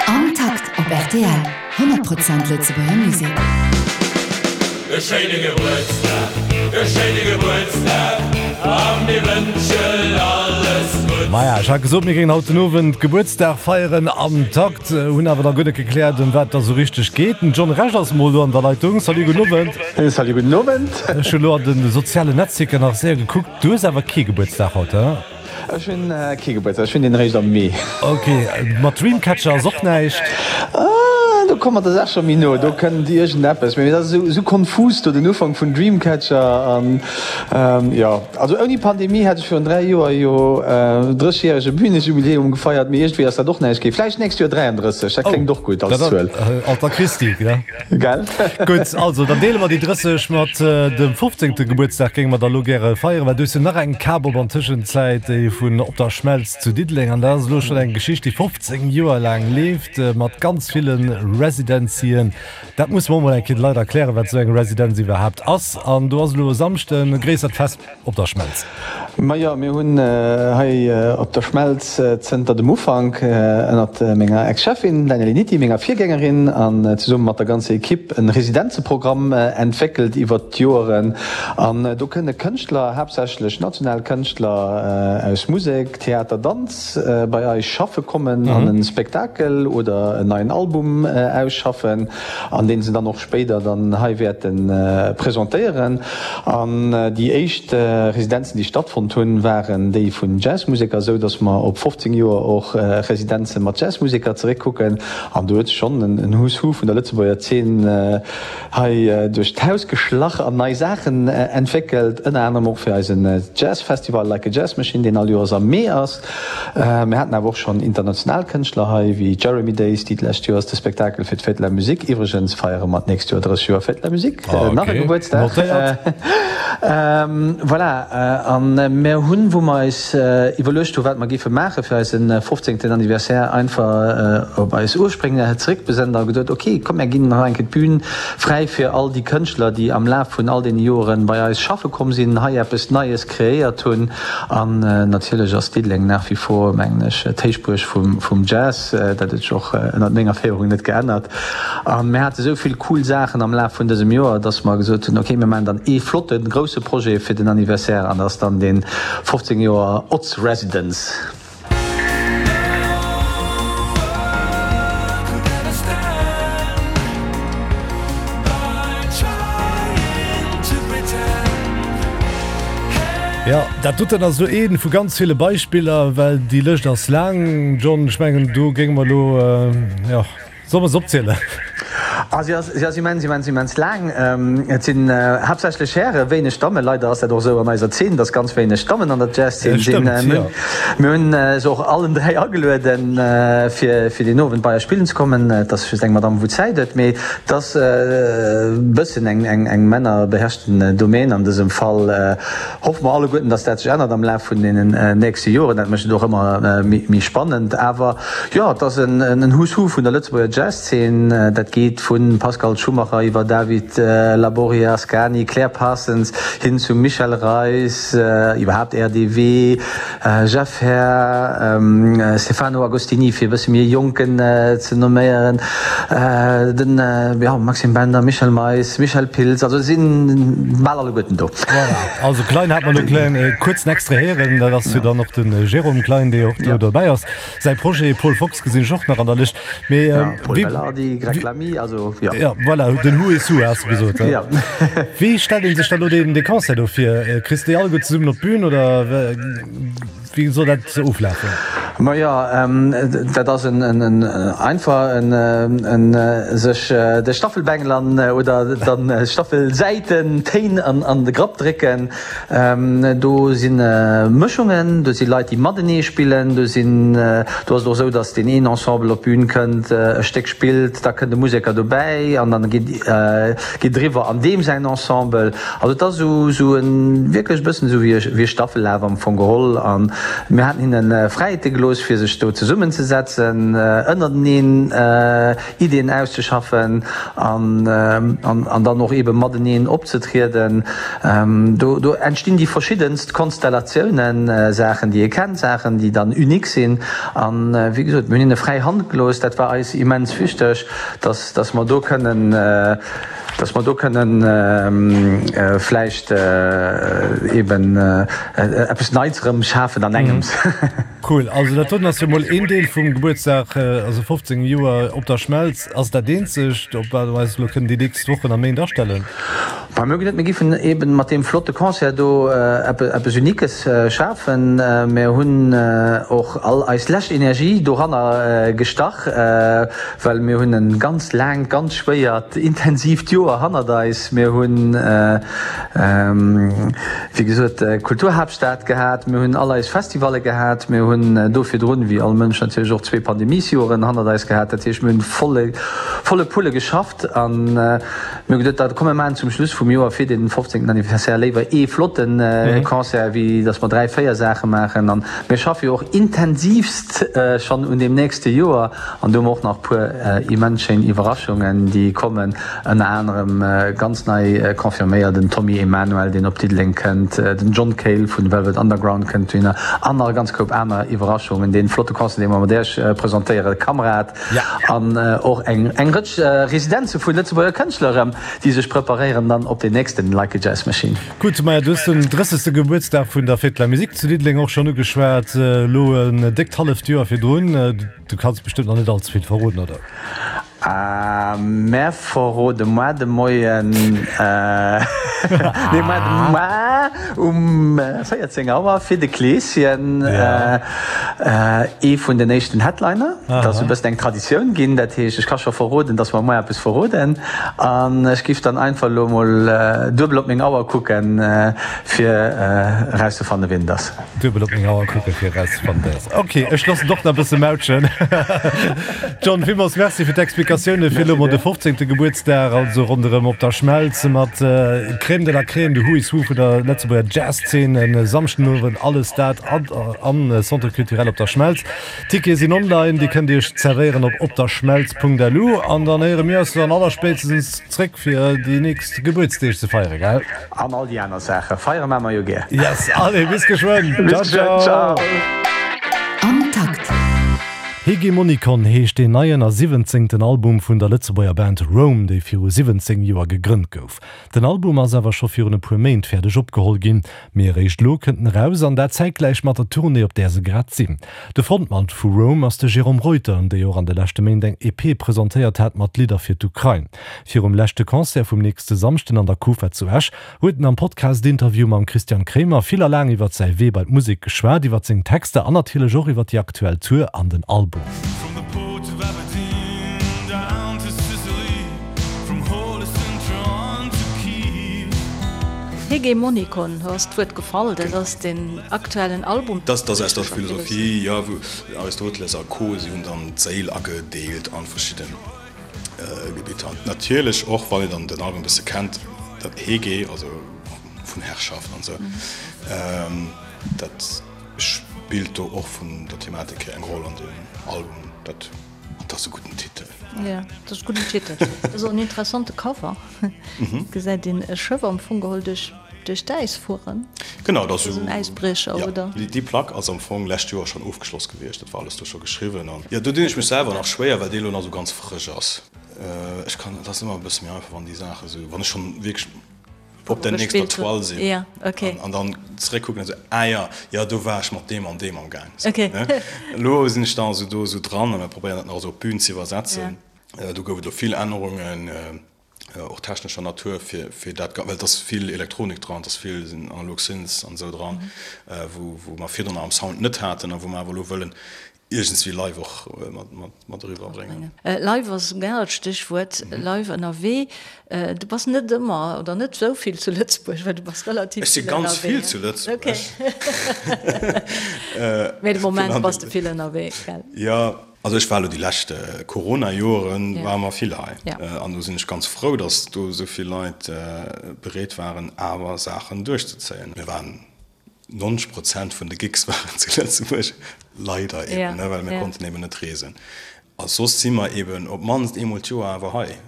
Am Takt op rtl, 100 Prozent Lëtzebuerger Musek. E schéine Gebuertsdag, e schéine Gebuertsdag a mir wënschen alles Gutts. Maja, ech hat gesot, mir géingen haut den Owend Gebuertsdag feieren am Takt, hunn awer da guer net gekläert, ëm wat et da sou richteg geet. Den John Rech ass mol do an der Leitung. Salut, gudden Owend. Salut, gudden Owend. Ech hunn elo an de sozialen Netzwierker nach séier gekuckt, du hues awer kee Gebuertsdag haut, he? Ech hunn kee Gebuertsdag, ech hunn deen eréischt am Mee. Ok, mat Dreamcatcher ass och näischt? Ah, do komme mer der Saach scho méi no, do kënnt iergendeppes, mee dat ass esou konfus do, den Ufank vun Dreamcatcher an jo. Also ouni Pandemie hätt ech virun 3 Joer jo 30-järege Bünejubiläum gefeiert, mee iergendwéi ass dat och näischt ginn. Vläicht d'nächst Joer 33, dat kléngt och gutt als Zuel. Alter Christi, gell? Gell? Gutt, also dann deele mer déi 30 mat dem 15. Gebuertsdag géinge mer da lo gäre feieren, well du hues jo nach eng Kap op an Tëschenzäit, déi vun Op der Schmelz zu Diddeleng. An dat ass elo schonn eng Geschicht, déi 15 Joer laang leeft, mat ganz ville Residencien. Dat musse mer och mol eng Kéier de Leit erklären, wat esou eng Residenz iwwerhaapt ass. An do ass elo e Samschden e gréissert Fest. Op der Schmelz. Majo, mir hunn hei op der Schmelz zënter dem Ufank ënnert menger Ex-Cheffin Danielle Nitti, menger Virgängerin, an zesumme mat der ganzer Equipe en Residenzeprogramm entwéckelt iwwert d'Joeren. An do kënne Kënschtler, haaptsächlech national Kënschtler aus Musek, Theater, Danz, bei eis schaffe kommen an e Spektakel oder en neien Album ausschaffen, an deen se dann och spéider dann hei wäerte presentéieren. An déi éischt Residenzen, déi stattfonnt hunn, waren déi vun Jazzmuseker, esou datt mer op 15 Joer och Residenze mat Jazzmuseker zeréckkucken. An do huet sech schonn en Who's Who vun der Lëtzebuerger Zeen hei duerch d'Haus geschlach an nei Saachen entwéckelt, ënner anerem och fir eisen Jazzfestival Like a Jazz Machine, deen all Joers am Mee ass. Mir haten awer och schonn international Kënschtler hei, wéi Jeremy Days, déi d'lescht Joers de Spektakel fir d'Fête de la Musique, iwwregens feiere mer d'nächst Joer 30 Joer Fête de la Musique, nach e Gebuertsdag, voilà. A mir hunn, wou mer eis iwwerluecht hu wat mer géife maache fir eise fofzéngten Anniversaire, einfach op eis Urspréng zeréckbesënnt a gesot, ok, komm mir ginn nach eng Kéier d'Bün fräi fir all déi Kënschtler, déi am Laf vun all deene Joren bei eis schaffe komm sinn, hei eppes Neies kreéiert hunn. An natierlech ass Diddeleng nach wie vor, mengen ech, d'Héichbuerg vum Jazz. Dat huet sech och ënnert menger Féierung net geännert. A mir hate sou vill cool Saachen am Laf vun dësem Joer, dass mer gesot hunn, okay, mir maachen dann ee flotten, grousse Projet fir den Anniversaire an dat ass dann dee 15 Joer Otz Residence. Jo, dat doten ass elo ee vu ganz ville Beispiller, well déi Lëscht ass laang, John. Ech mengen, do géinge mer elo, jo. Solle mer se opzielen? Ah, si ass, si ass immens, immens, immens laang. Et sinn haaptsächlech Hären, wéineg Dammen. Leider ass dat och esou an eiser Zeen, dass ganz wéineg Dammen an der Jazzszen sinn. Mir hunn se och allen 3 agelueden, fir, fir deen Owend bei eis spillen ze kommen. Et ass just eng Madame, wou Zäit huet, mee et ass e bëssen eng, eng, eng männerbeherrschten Domaine an dësem Fall. Hoffe mer alleguerten, dass dat sech ännert am Laf vun deenen nächste Joren. Dat mécht et och ëmmer méi spannend. Awer jo, et ass en Who's Who vun der Lëtzebuerger Jazzszen. Dat geet vu Pascal Schumacher iwwer David Labori Ascani, Claire Parsons hin zum Michel Reis, iwwerhaapt RDW, Jeff Herr, Stefano Agostini, fir e bësse méi e Jonken ze nomméieren, den Maxime Bender, Michel Mais, Michel Pilz, also et si bal alleguerten do. Voilà, also Klein hat mer elo kleng kuerz en Extrait héieren, dat ass jo dann och de Jérôme Klein, dee och do dobäi ass. Säi Projet Paul Fox gesinn ech och nach an der Lëscht. Mee Paul Belardi, Greg Lamy, also jo. Jo, voilà, den Who is Who has de gesot. Jo. Wéi stellt ee sech da lo deen dee Concert do vir? Kriss de déi alleguer zesummen op d'Bün oder wéi soll dat oflafen? Majo, dat ass en en einfach en en sech de Staffelbengel an oder dann Staffelsäiten, Téin an an de Grapp drécken. Do si Mëschungen, do si Leit, déi matenee spillen, do sinn, do ass et och esou, datt deen een Ensemble op d'Bün kënnt, e Stéck spillt, da kënnt e Museker dobäi. derbäi an dann geet geet eriwwer an deem säin Ensemble. Also et ass esou esou e wierklech e bëssen esou wéi e wéi e Staffellaf am Fong geholl an mir haten hinne Fräiheete gelooss fir sech do zesummenzesetzen, ënnerteneen Ideeën auszeschaffen an an dann och eebe mateneen opzetrieden. Do do entstinn déi verschiddenst Konstellatiounen, Saachen déi ee kennt, Saachen déi dann unique sinn. An wéi gesot, mir hunn hinne fräi Hand gelooss. Dat war eis immens wichteg, dass dass mer do kënnen dass mer do kënnen vläicht eeben eppes Neits erëm schafen an engems. Cool, also dat doten ass jo mol een Deel vum Gebuertsdag, also 15 Joer op der Schmelz. Ass dat eenzegt, op wat mer eis elo kënnen déi nächst Wochen a Méint astellen? Bah, mir hu geduet, mir giffen eben mat deem flotte Concert do eppes Uniques schafen. Mir hunn och all eis lescht Energie doranner gestach, well mir hunn e ganz laangt, ganz schwéiert, intensiivt Joer hannert eis. Mir hunn, wéi gesot, d'Kulturhaaptstad gehat, mir hunn all eis Festivalle gehat, mir hunn do virdrun, wéi all Mënsch natierlech och, zwee Pandemiesjoren hannert eis gehat. Dat heescht, mir hunn volle, volle Pulle geschafft an mir hu geduet, da komm mir maachen zum Schluss vum Joer fir den 15. Anniversaire léiwer ee flotte Concert, wéi datt mer dräi, véier Saache maachen. An mir schaffe jo och intensivst schonn un deem nächste Joer an do hu mer och nach e puer immens schéin Iwwerraschungen, déi kommen. Ënner anerem ganz nei confirméiert den Tommy Emmanuel, deen op Diddeleng kënnt, den John Cale vun Velvet Underground kënnt dohinner an nach e ganz Koup aner Iwwerraschungen. Dee flotte Concert, dee mer mat Iech presentéieren, Kamrad, an och eng eng Rëtsch Residenze vu Lëtzebuerger Kënschtler erëm, déi sech preparéieren dann op deen nächsten Like a Jazz Machine. Gutt, maja, du hues den 30. Gebuertsdag vun der Fête de la Musique zu Diddeleng och schonn ugeschwat, elo en déckt halleft Joer virdrun. Du kanns bestëmmt nach net all ze vill verroden, oder? Mär verrode moar de Moien, nee moar de moar um 14 Auer fir de Kleeschen ee vun den éischten Headliner. Dat ass e bëssen eng Traditioun ginn, dat heescht ech ka scho verroden, datt mer moar eppes verroden. An ech giff dann einfach elo mol duebel op meng Auer kucken, fir erauszefanne wien et ass. Duebel op meng Auer kucken fir erauszefannen wer ass. Ok, ech loossen och nach e bësse mautschen. John, villmools Merci fir d'Explikatioune fir elo mol de 15. Gebuertsdag, also ronderëm op der Schmelz mat Crème de la Crème, de Who is Who vun der Lëtzebuerger Jazzszen e Samschdenowend. Alles dat am Centre Culturel op der Schmelz. Tickete sinn online, Dir kënnt Iech zerwéieren op opderschmelz.lu an dann héiere mir eis dann allerspéitstens zréck fir déi nächst Gebuertsdeeg ze feieren, gell? An all déi aner Saachen. Feiere maa mer jo gär. Yes, allez, bis geschwënn. Bis geschwënn, ciao. Am Takt. Hegemonikon heescht deen neien a siwwenzéngten Album vun der Lëtzebuerger Band Rome, déi viru 17 Joer gegrënnt gouf. Den Album ass awer scho virun e puer Méint fäerdeg opgeholl ginn, mee eréischt elo kënnt en eraus an dat zäitgläich mat der Tournée, op där se grad sinn. De Frontmann vu Rome ass de Jérôme Reuter, déi och an de leschte Méint eng EP presentéiert hat mat Lidder fir d'Ukrain. Virum leschte Concert vum nächste Samschden an der Kufa zu Esch huet en am Podcast-Interview mam Christian Kremer vill a laang iwwert säi Wee bei d'Musek geschwat, iwwert seng Texter an natierlech och iwwert déi aktuell Tour an den Album. Hegemonikon, do ass d'Wuert gefall, dat ass den aktuellen Album. Dat ass aus der Philosophie, jo, wou Aristoteles a Co. Si hunn dann d'Séil agedeelt a verschidden. Gebitter. Natierlech och, wann een dann den Album e bësse kennt, dat Hege, also vun Herrschaft an esou, dat spillt do och vun der Thematik hier eng Roll an deem Album. Dat, an dat ass e gudden Titel. Jo, dat ass e gudden Titel. Dat ass och en interessante Cover. Gesäit een e Schëff am Fong geholl duerch. Duerch d'Äis fueren? Genau, dat ass en Äisbriecher, oder? Jo, déi Plack ass am Fong lescht Joer schonn ofgeschloss gewiescht. Dat war alles do scho geschriwwen. An jo, do dinn ech mech selwer nach schwéier, well déi elo nach esou ganz frësch ass. Ech kann, et ass ëmmer e bësse méi einfach, wann déi Saache esou, wann ech schonn wierklech op der nächster Toile sinn an dann zeréckkucken an esou, ah jo, jo, do war ech mat deem an deem am Gaang. Elo sinn ech da esou do esou dran a mir probéieren dat nach esou op d'Bün ze iwwersetzen. Do gouf et elo vill Ännerungen. och technescher Natur, fir, fir dat, well et ass vill Elektronik dran, et ass vill analog Synths an esou dran, wou, wou mer virdrun am Sound net haten a wou mer awer elo wëllen iergendswéi live och mat, mat, mat eriwwer bréngen. Live ass e generellt Stéchwuert, live ënnerwee. Du bass net ëmmer oder net esou vill zu Lëtzebuerg, well du bass relativ Ech si vill ganz ënnerwee. vill zu Lëtzebuerg. Mee de Moment bass de vill ënnerwee, gell? Jo. Also ech war elo déi lescht Corona-Joren ware mer vill hei. An do sinn ech ganz frou, datt do esou vill Leit bereet waren awer Saachen duerchzezéien. Mir waren 90 Prozent vun de Gigs waren zu Lëtzebuerg, leider eben, well mir konnten eben net reesen. A soss si mer eben op d'mannst eemol d'Joer awer hei.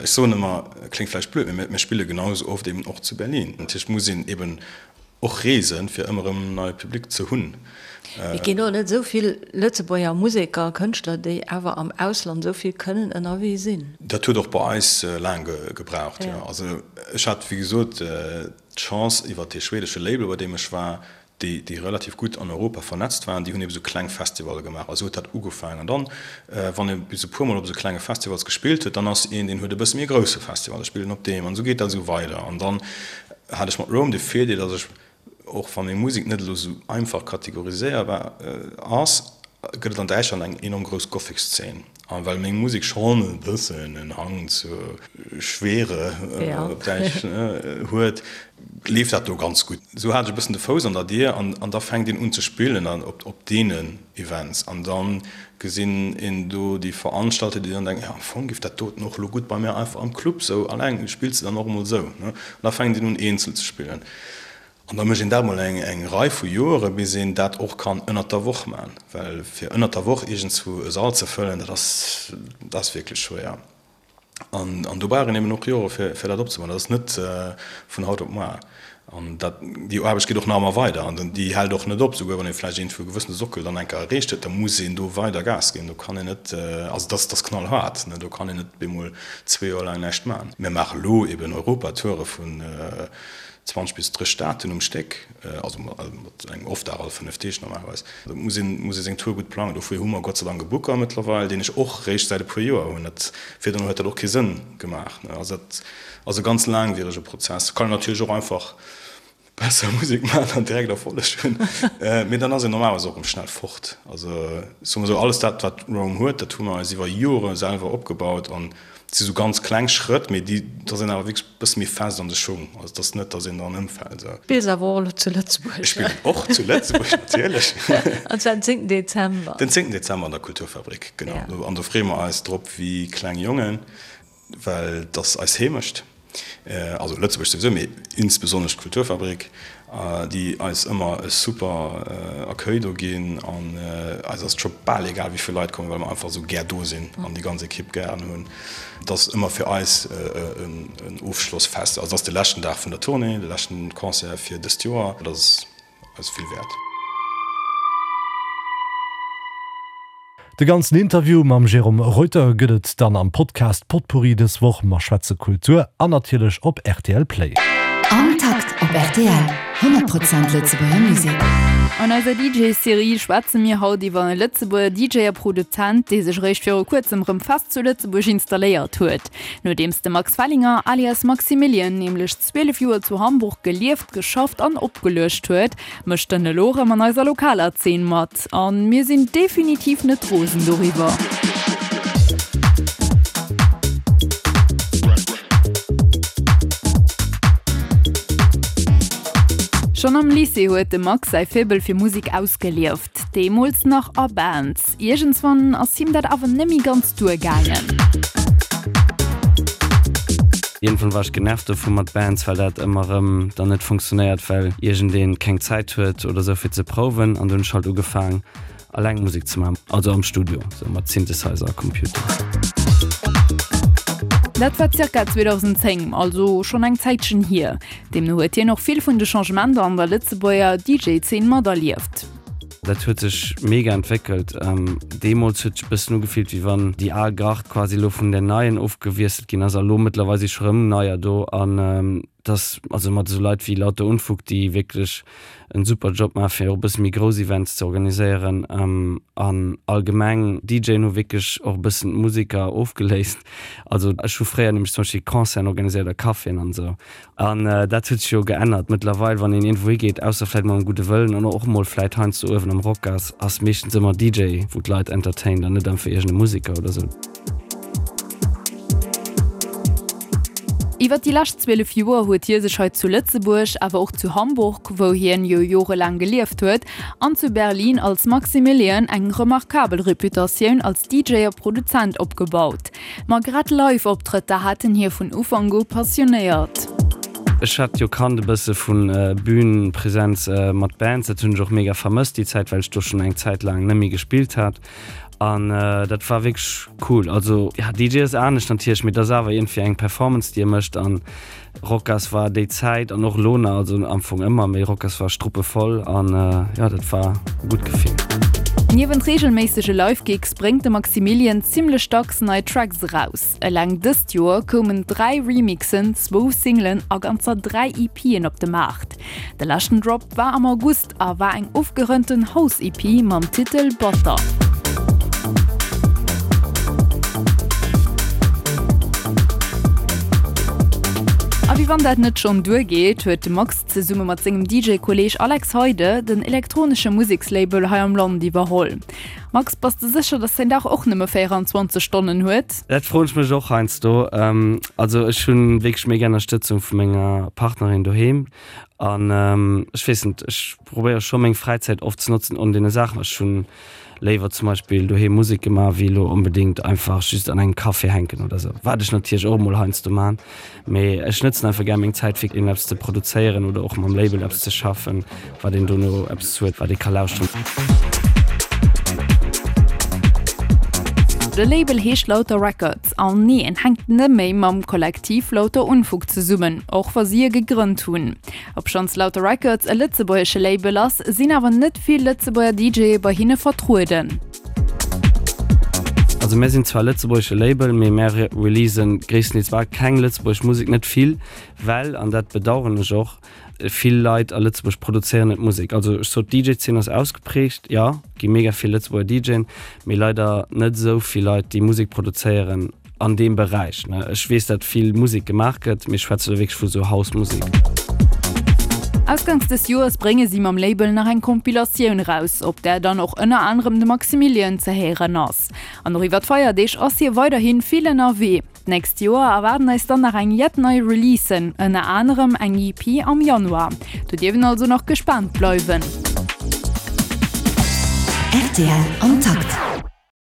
Ech soen ëmmer, kléngt vläicht blöd, mee mir spille genau esou oft eben och zu Berlin. Natierlech muss een eben och reesen, fir ëmmer erëm en neie Public ze hunn. Et ginn och net esou vill Lëtzebuerger Museker a Kënschtler, déi awer am Ausland esou vill kënnen ënnerwee sinn. Dat huet och bei eis laang gebraucht, jo. Also ech hat, wéi gesot, d'Chance iwwer dee schwedesche Label, bei deem ech war, déi, déi relativ gutt an Europa vernetzt waren, déi hunn ebe sou kleng Festivalle gemaach. A sou huet dat ugefaangen. An dann, wann ee bis e puermol op esou klenge Festivals gespillt huet, dann ass een, deen huet e bësse méi e grousse Festival, da spillt en op deem. An esou geet dat esou weider. An dann hat ech mat Rome de Virdeel, datt ech, och wa meng Musek net elo sou einfach kategoriséierbar ass, gëtt et an Däitschland eng enorm grouss Gothic-Szene. A well meng Musek schonn e bëssen en Hang zur Schwere, op Däitsch, huet, leeft dat do ganz gutt. Esou hat ech e bëssen de Fouss an der Dier an da fänkt een un ze spillen an op deenen Events an da gesinn een do déi Veranstalter, déi dann denken, jo am Fong giff dat doten och elo gutt bei mär einfach am Club sou alleng, spills de dann och emol esou, ne? An da fänkt een un eenzel ze spillen. An da mécht een dat mol eng Rei vu Joere bis een dat och kann ënnert der Woch man, well fir ënnert der Woch iergendswou e Sall ze fëllen, dat ass, dat ass wierklech schwéier. An, an do brauch een eben och Jore fir, fir dat opzebauen. Dat ass net vun haut op moar. An dat, déi Aarbecht geet och nach ëmmer weider an déi hält och net op. Souguer wann ee vläicht iergendwou e gewëssene Sockel dann eng Kéier erreecht huet, da muss een do weider Gas ginn. Do kann een net, also dat ass, dat ass knallhaart, ne, do kann een net bemol zwee Joer laang näischt man. Mir maache lo eben Europatoure vun 20 bis 30 Daten um Stéck, also mat engem Off-Dag all 5 Deeg normalerweis. Do muss een, muss ee seng Tour gutt plangen. Dofir hu mer Gott sei Dank e Booker mëttlerweil, deen ech och réischt säit e puer Joer hunn. Dat, virdrun huet dat och kee Sënn gemaach. Also dat ass e ganz laangwierege Prozess. Kann een natierlech och einfach besser Musek maachen an direkt Erfolleg hunn, mee dann ass een normalerweis och erëm schnell fort. Also soe mer esou, alles dat, wat Rome huet, dat hu mer eis iwwer Jore selwer opgebaut an Et si sou ganz kleng Schrëtt, mee déi, da sinn awer wierklech e bësse méi fest an de Schung. Also et ass net, datt een dran ëmfält. Spills awer och elo zu Lëtzebuerg? Ech spillen och zu Lëtzebuerg, natierlech. An zwar den zéngten Dezember. Den zéngten Dezember an der Kulturfabrik, genau. An do freeë mer eis drop wéi kleng Jongen, well et ass eis Heemecht. Also Lëtzebuerg souwisou, mee insbesonnesch d'Kulturfabrik, déi eis ëmmer e super Accueil do ginn. An eis ass et scho bal egal, wéi vill Leit kommen, well mer einfach esou gär do sinn an déi ganz Ekipp gären hunn. Et ass ëmmer fir eis en Ofschlossfest. Also et ass de leschten Dag vun der Tournée, de leschten Concert fir dëst Joer. Dat ass eis vill wäert. De ganzen Interview mam Jérôme Reuter gëtt et dann am Podcast Potpourri dës Woch. Mer schwätze Kultur an natierlech op rtl Play. Am Takt op rtl, 100 Prozent Lëtzebuerger Musek. An eiser DJ-Serie schwätze mir haut iwwer e Lëtzebuerger DJ a Produzent, dee sech eréischt viru kuerzem rëm fest zu Lëtzebuerg installéiert huet. Nodeems de Max Fellinger alias Maximilian nämlech 12 Joer zu Hamburg gelieft, geschafft an opgeluecht huet, mécht en elo erëm an eiser lokaler Zeen mat. An mir sinn definitiv net rosen doriwwer. Schonn am Lycée huet de Max säi Faible fir Musek ausgelieft, deemools nach a Bands. Iergendswann ass him dat awer nemmi ganz duer gaangen. Iergendwann war ech genervt dovu mat Bands, well dat ëmmer erëm dann net funktionéiert, well iergendeen keng Zäit huet oder sou fir ze prouwen an du hunn ech halt ugefaang alleng Musek ze maachen, also am Studio, sou mat Synthesizer a Computer. Dat war zirka 2010, also schonn eng Zäitchen hier. Deemno huet hien och vill vun de Changementer an der Lëtzebuerger DJ-Zeen materlieft. Dat huet sech mega entwéckelt. Deemools huet sech e bëssen ugefillt, wéi wann déi al Gard quasi elo vun där neien ofgewiesselt ginn ass. A lo mëttlerweil si scho rëm neier do. An dass, also mat esou Leit wéi Lauter Unfug, déi wierklech en super Job maachen, fir och e bësse méi grouss Events ze organiséieren. An allgemeng, DJen hu wierklech och e bëssen d'Museker ofgeléist. Also ech hu fréier nämlech zum Beispill Concerten organiséiert a Caféen an esou. An dat huet sech jo geännert. Mëttlerweil, wann een iergendwou higeet, ausser vläit mol am Gudde Wëllen an och mol vläit heiansdo uewen am Rocas, ass meeschtens ëmmer DJ, wou d'Leit entertaint an net einfach iergend e Museker oder sou. Iwwer déi lescht 12 Joer huet hie sech hei zu Lëtzebuerg, awer och zu Hamburg, wou hien jo jorelaang gelieft huet, an zu Berlin als Maximilian eng remarkabel Reputatioun als DJ a Produzent opgebaut. Ma grad Live-Optrëtter haten hie vun Ufank u passionéiert. Ech hat jo kannt e bësse vu Bühnenpräsenz mat Bands, dat hunn ech och mega vermësst déi Zäit, well ech do schonn eng Zäit laang net méi gespillt hat an dat war wierklech cool. Also ja, DJ ass anescht natierlech, mee et ass awer iergendwéi eng Performance déi e mécht an Rocas war déi Zäit an och elo nach, also am Fong ëmmer, mee Rocas war struppevoll an jo, dat war e gutt Gefill. Niewent reegelméissege Live-Gigs bréngt de Maximilian zimmlech dacks nei Tracks eraus. Eleng dëst Joer koumen 3 Remixen, zwou Singlen a ganzer 3 EPen op de Maart. De leschten Drop war am August a war eng ofgerënnten House-EP mam Titel Butter. A wéi wann dat net schonn duer geet, huet de Max zesumme mat sengem DJ-Kolleeg Alex Heide den elektronesche Musekslabel hei am Land iwwerholl. Max, bass de sécher, dass däin Dag och nëmme 24 Stonnen huet? Dat froen ech mech och heiansdo. Also ech hunn wierklech mega Ënnerstëtzung vu menger Partnerin doheem. An ech weess net, ech probéiere scho meng Fräizäit oft ze notzen un deene Saachen. Ech hunn léiwer zum Beispill doheem Musek gemaach, wéi elo onbedéngt einfach just an engem Café hänken oder sou. Wat ech natierlech och emol heiansdo man, mee ech nëtzen einfach gär meng Zäit fir iergendeppes ze produzéieren oder och mam Label eppes ze schaffen, wat een dono eppes huet, wat ee ka lauschteren. De Label heescht Lauter Records. An nee, en hänkt net méi mam Kollektiv Lauter Unfug zesummen, och wa si e gegrënnt hunn. Obschonns Lauter Records e lëtzebuergesche Label ass, sinn awer net vill Lëtzebuerger DJe bei hinne vertrueden. Also mär sinn zwar e lëtzebuergesche Label, mee mär releasen gréisstendeels bal keng lëtzebuergesch Musek, net vill, well, an dat bedaueren ech och, Vill Leit a Lëtzebuerg produzéieren net Musek. Also ech sot d'DJ-Zeen ass ausgeprägt, jo, gi mega vill Lëtzebuerger DJen, mee leider net esou vill Leit, déi Musek produzéieren an deem Beräich. Ech weess, dat vill Musek gemaach gëtt, mee ech schwätze elo wierklech vu sou House-Musek. Ausgangs des Joers brénge si mam Label nach eng Compilatioun eraus, op där dann och ënner anerem de Maximilian ze héieren ass. An och iwwer d'Feierdeeg ass hie weiderhi vill ënnerwee. D'nächst Joer erwaarden eis dann nach eng jett nei Releasen, ënner anerem eng EP am Januar. Do dierf een also nach gespaant bleiwen. Rtl am Takt.